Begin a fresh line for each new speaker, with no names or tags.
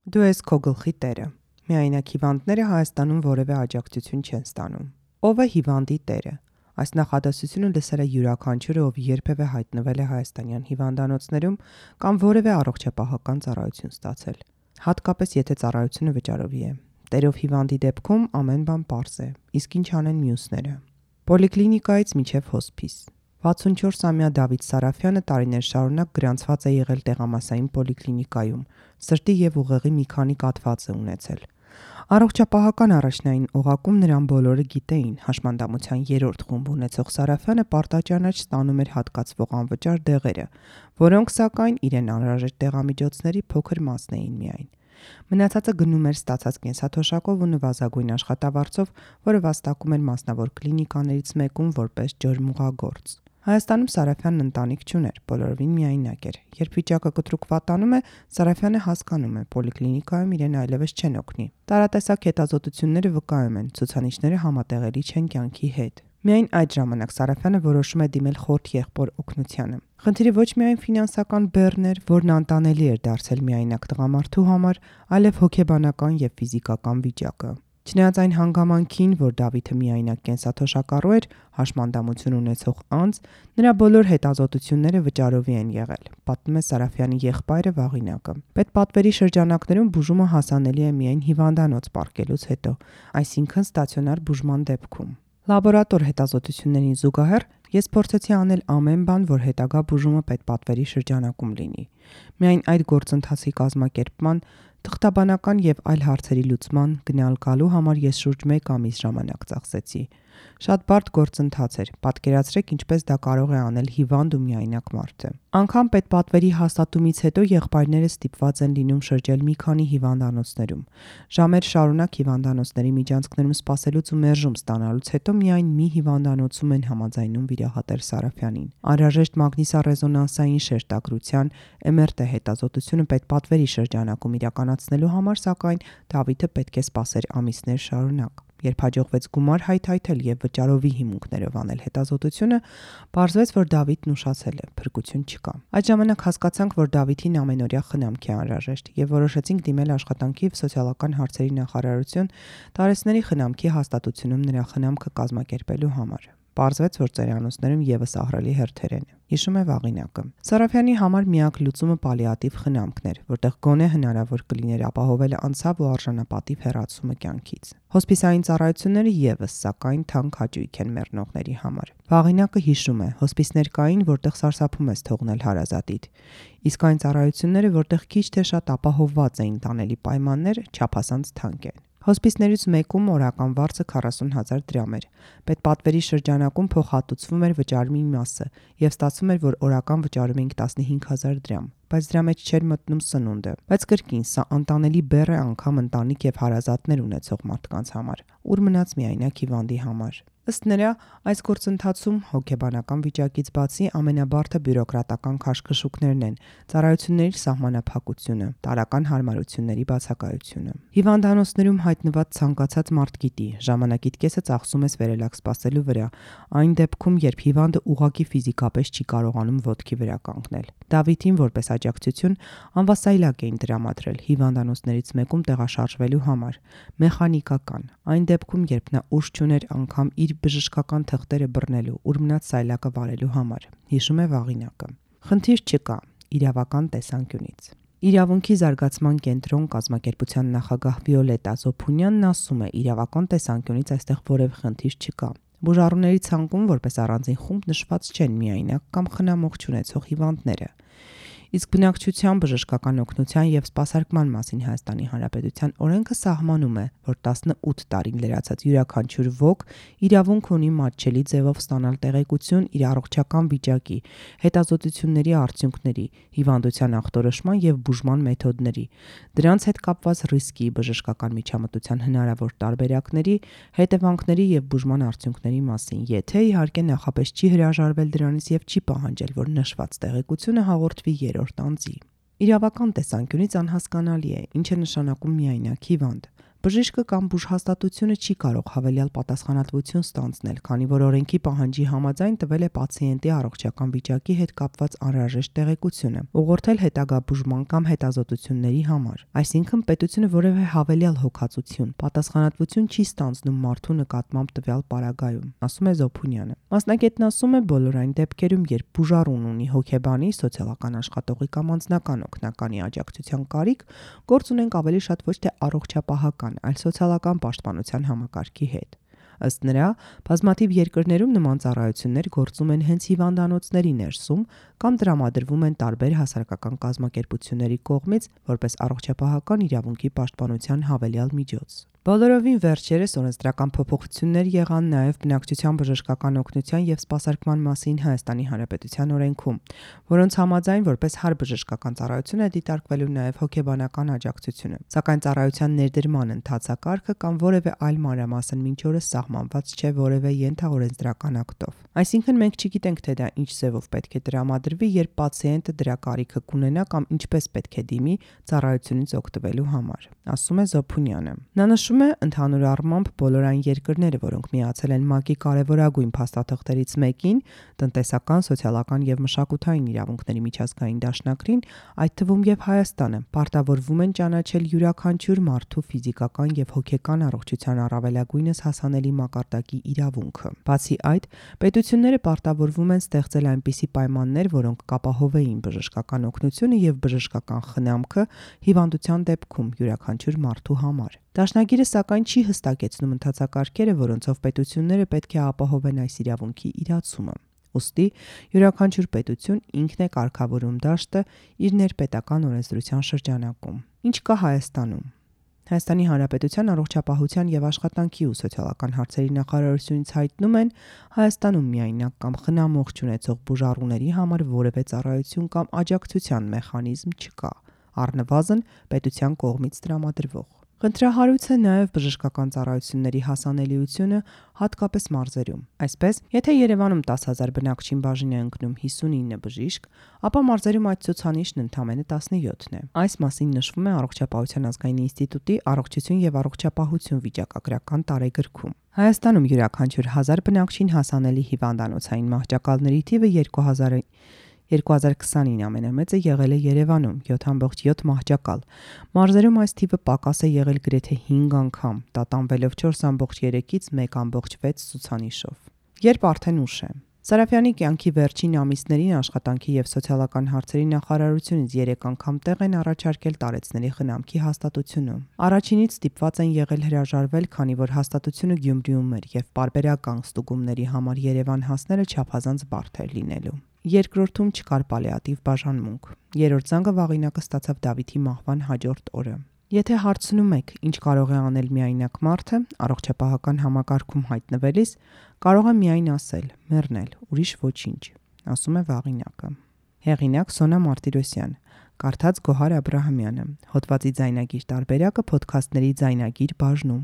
Դու ես քո գլխի տերը։ Միայնակ հիվանդները Հայաստանում որևէ աջակցություն չեն ստանում։ Ո՞վ է հիվանդի տերը։ Այս նախադասությունը լսել է յուրաքանչյուրը, ով երբևէ հայտնվել է հայաստանյան հիվանդանոցներում կամ որևէ առողջապահական ծառայություն ստացել։ Հատկապես եթե ծառայությունը վճարովի է։ Տերով հիվանդի դեպքում ամեն բան պարզ է, իսկ ինչ անեն մյուսները։ Պոլիկլինիկայից մինչև հոսպիս։ 64-ամյա Դավիթ Սարաֆյանը տարիներ շարունակ գրանցված է եղել տեղամասային պոլիկլինիկայում, սրտի եւ ուղեղի մի քանի կաթված է ունեցել։ Առողջապահական առաջնային օղակում նրան բոլորը գիտեին, հաշմանդամության 3-րդ խումբ ունեցող Սարաֆյանը պարտաճանաչ ստանում էր հատկացվող անվճար դեղերը, որոնք սակայն իրեն անհրաժեշտ դեղամիջոցների փոքր մասն էին միայն։ Մնացածը գնում էր ստացած կենսաթոշակով ու նվազագույն աշխատավարձով, որը վաստակում էր մասնավոր կլինիկաներից մեկում որպես ջրմուղագործ։ Հայաստանում Սարաֆյանն ընտանիք չուներ, բոլորովին միայնակ էր։ Երբ վիճակը կտրուկ վատանում է, Սարաֆյանը հասկանում է, պոլիկլինիկայում իրեն այլևս չեն օգնի։ Տարատեսակ հետազոտությունները վկայում են, ցուցանիշները համատեղելի չեն կյանքի հետ։ Միայն այդ ժամանակ Սարաֆյանը որոշում է դիմել խորթ եղբոր օգնությանը։ Խնդիրը ոչ միայն ֆինանսական բեռն էր, որն անտանելի էր դարձել միայնակ տղամարդու համար, այլև հոգեբանական եւ ֆիզիկական վիճակը։ Չնայած այն հանգամանքին, որ Դավիթը միայնակ կենսաթոշակառու էր, հաշմանդամություն ունեցող անձ, նրա բոլոր հետազոտությունները վճարովի են եղել, պատմում է Սարաֆյանի եղբայրը Վաղինակը։ Պետպատվերի շրջանակներում բուժումը հասանելի է միայն հիվանդանոց պառկելուց հետո, այսինքն ստացիոնար բուժման դեպքում։ Լաբորատոր հետազոտություններին զուգահեռ ես փորձեցի անել ամեն բան, որ հետագա բուժումը պետպատվերի շրջանակում լինի։ Միայն այդ գործընթացի կազմակերպման, թղթաբանական եւ այլ հարցերի լուծման, գնալ-գալու համար ես շուրջ 1 ամիս ժամանակ ծախսեցի։ Շատ բարդ գործընթաց էր, պատկերացրեք ինչպես դա կարող է անել հիվանդ ու միայնակ մարդը։ Անգամ պետպատվերի հաստատումից հետո եղբայրները ստիպված են լինում շրջել մի քանի հիվանդանոցներում։ Ժամեր շարունակ հիվանդանոցների միջանցքներում սպասելուց ու մերժում ստանալուց հետո միայն մի հիվանդանոցում են համաձայնում վիրահատել Սարաֆյանին։ Անհրաժեշտ մագնիսառեզոնանսային շերտագրության MRT հետազոտությունը պետպատվերի շրջանակում իրականացնելու համար, սակայն Դավիթը պետք է սպասեր ամիսներ շարունակ։ Երբ հաջողվեց գումար հայթայթել եւ վճարովի հիմունքներով անել հետազոտությունը, պարզվեց, որ Դավիթն ուշացել է, փրկություն չկա։ Այդ ժամանակ հասկացանք, որ Դավիթին ամենօրյա խնամք է անհրաժեշտ եւ որոշեցինք դիմել աշխատանքի եւ սոցիալական հարցերի նախարարություն տարեցների խնամքի հաստատությունում նրա խնամքը կազմակերպելու համար։ Պարզվեց, որ ծերանոցներում եւս ահռելի հերթեր են։ Հիշում է Վաղինակը։ Սարաֆյանի համար միակ լուծումը պալիատիվ խնամքն էր, որտեղ գոնե հնարավոր կլիներ ապահովել անցավ ու արժանապատիվ հեռացումը կյանքից։ Հոսպիսային ծառայությունները եւս, սակայն, թանկ հաճույք են մեռնողների համար։ Վաղինակը հիշում է, հոսպիսներ կային, որտեղ սարսափում ես թողնել հարազատիդ։ Իսկ այն ծառայությունները, որտեղ քիչ թե շատ ապահովված էին տանելի պայմաններ, չափազանց թանկ են։ Հոսպիսներից մեկում օրական վարձը 40,000 դրամ էր։ Պետպատվերի շրջանակում փոխհատուցվում էր վճարումի մասը եւ ստացվում էր, որ օրական վճարում էինք 15,000 դրամ, բայց դրա մեջ չէր մտնում սնունդը։ Բայց կրկին, սա անտանելի բեռ է անգամ ընտանիք եւ հարազատներ ունեցող մարդկանց համար, ուր մնաց միայնակ հիվանդի համար։ Ըստ նրա, այս գործընթացում հոգեբանական վիճակից բացի ամենաբարդը բյուրոկրատական քաշքշուկներն են, ծառայությունների սահմանափակությունը, տարրական հարմարությունների բացակայությունը։ Հիվանդանոցներում հայտնված ցանկացած մարդ գիտի, ժամանակիդ կեսը ծախսում ես վերելակ սպասելու վրա, այն դեպքում, երբ հիվանդը ուղղակի ֆիզիկապես չի կարողանում ոտքի վրա կանգնել։ Դավիթին որպես աջակցություն անվասայլակ էին տրամադրել հիվանդանոցներից մեկում տեղաշարժվելու համար, մեխանիկական, այն դեպքում, երբ նա ուժ չուներ անգամ իր բժշկական թղթերը բռնելու, ուր մնաց սայլակը վարելու համար, հիշում է Վաղինակը։ Խնդիր չկա իրավական տեսանկյունից։ Իրավունքի զարգացման կենտրոն կազմակերպության նախագահ Վիոլետա Զոփունյանն ասում է, իրավական տեսանկյունից այստեղ որևէ խնդիր չկա։ Բուժառուների ցանկում որպես առանձին խումբ նշված չեն միայնակ կամ խնամող չունեցող հիվանդները։ Իսկ բնակչության բժշկական օգնության եւ սպասարկման մասին Հայաստանի Հանրապետության օրենքը սահմանում է, որ 18 տարին լրացած յուրաքանչյուր ոք իրավունք ունի մատչելի ձևով ստանալ տեղեկություն իր առողջական վիճակի, հետազոտությունների արդյունքների, հիվանդության ախտորոշման եւ բուժման մեթոդների, դրանց հետ կապված ռիսկի, բժշկական միջամտության հնարավոր տարբերակների, հետևանքների եւ բուժման արդյունքների մասին, եթե իհարկե նախապես չի հրաժարվել դրանից եւ չի պահանջել, որ նշված տեղեկությունը հաղորդվի երրորդ անձի։ Իրավական տեսանկյունից անհասկանալի է, ինչ է նշանակում միայնակ հիվանդ։ բժիշկը կամ բուժհաստատությունը չի կարող հավելյալ պատասխանատվություն ստանձնել, քանի որ օրենքի պահանջի համաձայն տվել է պացիենտի առողջական վիճակի հետ կապված անհրաժեշտ տեղեկությունը, ուղղորդել հետագա բուժման կամ հետազոտությունների համար։ Այսինքն պետությունը որևէ հավելյալ հոգացություն, պատասխանատվություն չի ստանձնում մարդու նկատմամբ տվյալ պարագայում, ասում է Զոփունյանը։ Մասնագետն ասում է, բոլոր այն դեպքերում, երբ բուժառուն ունի հոգեբանի, սոցիալական աշխատողի կամ անձնական օգնականի աջակցության կարիք, գործ ունենք ավելի շատ ոչ թե առողջապահական, այլ սոցիալական պաշտպանության համակարգի հետ։ Ըստ նրա, բազմաթիվ երկրներում նման ծառայություններ գործում են հենց հիվանդանոցների ներսում կամ տրամադրվում են տարբեր հասարակական կազմակերպությունների կողմից որպես առողջապահական իրավունքի պաշտպանության հավելյալ միջոց։ Բոլորովին վերջերս օրենսդրական փոփոխություններ եղան նաև բնակչության բժշկական օգնության և սպասարկման մասին Հայաստանի Հանրապետության օրենքում, որոնց համաձայն որպես հարբժշկական ծառայություն է դիտարկվելու նաև հոգեբանական աջակցությունը, սակայն ծառայության ներդրման ընթացակարգը կամ որևէ այլ մանրամասն մինչ օրս սահմանված չէ որևէ ենթաօրենսդրական ակտով։ Այսինքն մենք չգիտենք, թե դա ինչ ձևով պետք է տրամադրվի, երբ պացիենտը դրա կարիքը կունենա կամ ինչպես պետք է դիմի ծառայությունից օգտվելու համար, ասում է Զոփունյանը։ Նա նշում է, ընդհանուր առմամբ բոլոր այն երկրները, որոնք միացել են ՄԱԿ-ի կարևորագույն փաստաթղթերից մեկին, տնտեսական, սոցիալական և մշակութային իրավունքների միջազգային դաշնակցին, այդ թվում և Հայաստանը, պարտավորվում են ճանաչել յուրաքանչյուր մարդու ֆիզիկական և հոգեկան առողջության առավելագույնս հասանելի մակարդակի իրավունքը։ Բացի այդ, պետությունները պարտավորվում են ստեղծել այնպիսի պայմաններ, որոնք կապահովեին բժշկական օգնությունը և բժշկական խնամքը հիվանդության դեպքում յուրաքանչյուր մարդու համար։ Դաշնագիրը սակայն չի հստակեցնում ընթացակարգերը, որոնցով պետությունները պետք է ապահովեն այս իրավունքի իրացումը։ Ուստի յուրաքանչյուր պետություն ինքն է կարգավորում դաշտը իր ներպետական օրենսդրության շրջանակում։ Ինչ կա Հայաստանում։ Հայաստանի Հանրապետության առողջապահության և աշխատանքի ու սոցիալական հարցերի նախարարությունից հայտնում են, Հայաստանում միայնակ կամ խնամող չունեցող բուժառուների համար որևէ ծառայություն կամ աջակցության մեխանիզմ չկա, առնվազն պետության կողմից տրամադրվող։ Խնդրահարույց է նաև բժշկական ծառայությունների հասանելիությունը, հատկապես մարզերում։ Այսպես, եթե Երևանում 10,000 բնակչին բաժին է ընկնում 59 բժիշկ, ապա մարզերում այդ ցուցանիշն ընդամենը 17-ն է։ Այս մասին նշվում է Առողջապահության ազգային ինստիտուտի առողջություն եւ առողջապահություն վիճակագրական տարեգրքում։ Հայաստանում յուրաքանչյուր 1000 բնակչին հասանելի հիվանդանոցային մահճակալների թիվը 2020-ին ամենամեծը եղել է Երևանում 7.7 մահճակալ։ Մարզերում այս թիվը պակաս է եղել գրեթե 5 անգամ, տատանվելով 4.3-ից 1.6 ցուցանիշով։ Երբ արդեն ուշ է։ Սարաֆյանի կյանքի վերջին ամիսներին աշխատանքի և սոցիալական հարցերի նախարարությունից 3 անգամ տեղ են առաջարկել տարեցների խնամքի հաստատությունում։ Առաջինից ստիպված են եղել հրաժարվել, քանի որ հաստատությունը Գյումրիում էր և պարբերական ստուգումների համար Երևան հասնելը չափազանց բարդ էր լինելու։ Երկրորդում չկար պալիատիվ բաժանմունք։ Երրորդ զանգը վաղինակը ստացավ Դավիթի մահվան հաջորդ օրը։ Եթե հարցնում եք, ինչ կարող է անել միայնակ մարդը, առողջապահական համակարգում հայտնվելիս, կարող է միայն ասել՝ մեռնել, ուրիշ ոչինչ, ասում է վաղինակը։ Հեղինակ Սոնա Մարտիրոսյան, կարդաց Գոհար Աբրահամյանը, հոդվածի ձայնագիր տարբերակը Փոդքասթների ձայնագիր բաժնում։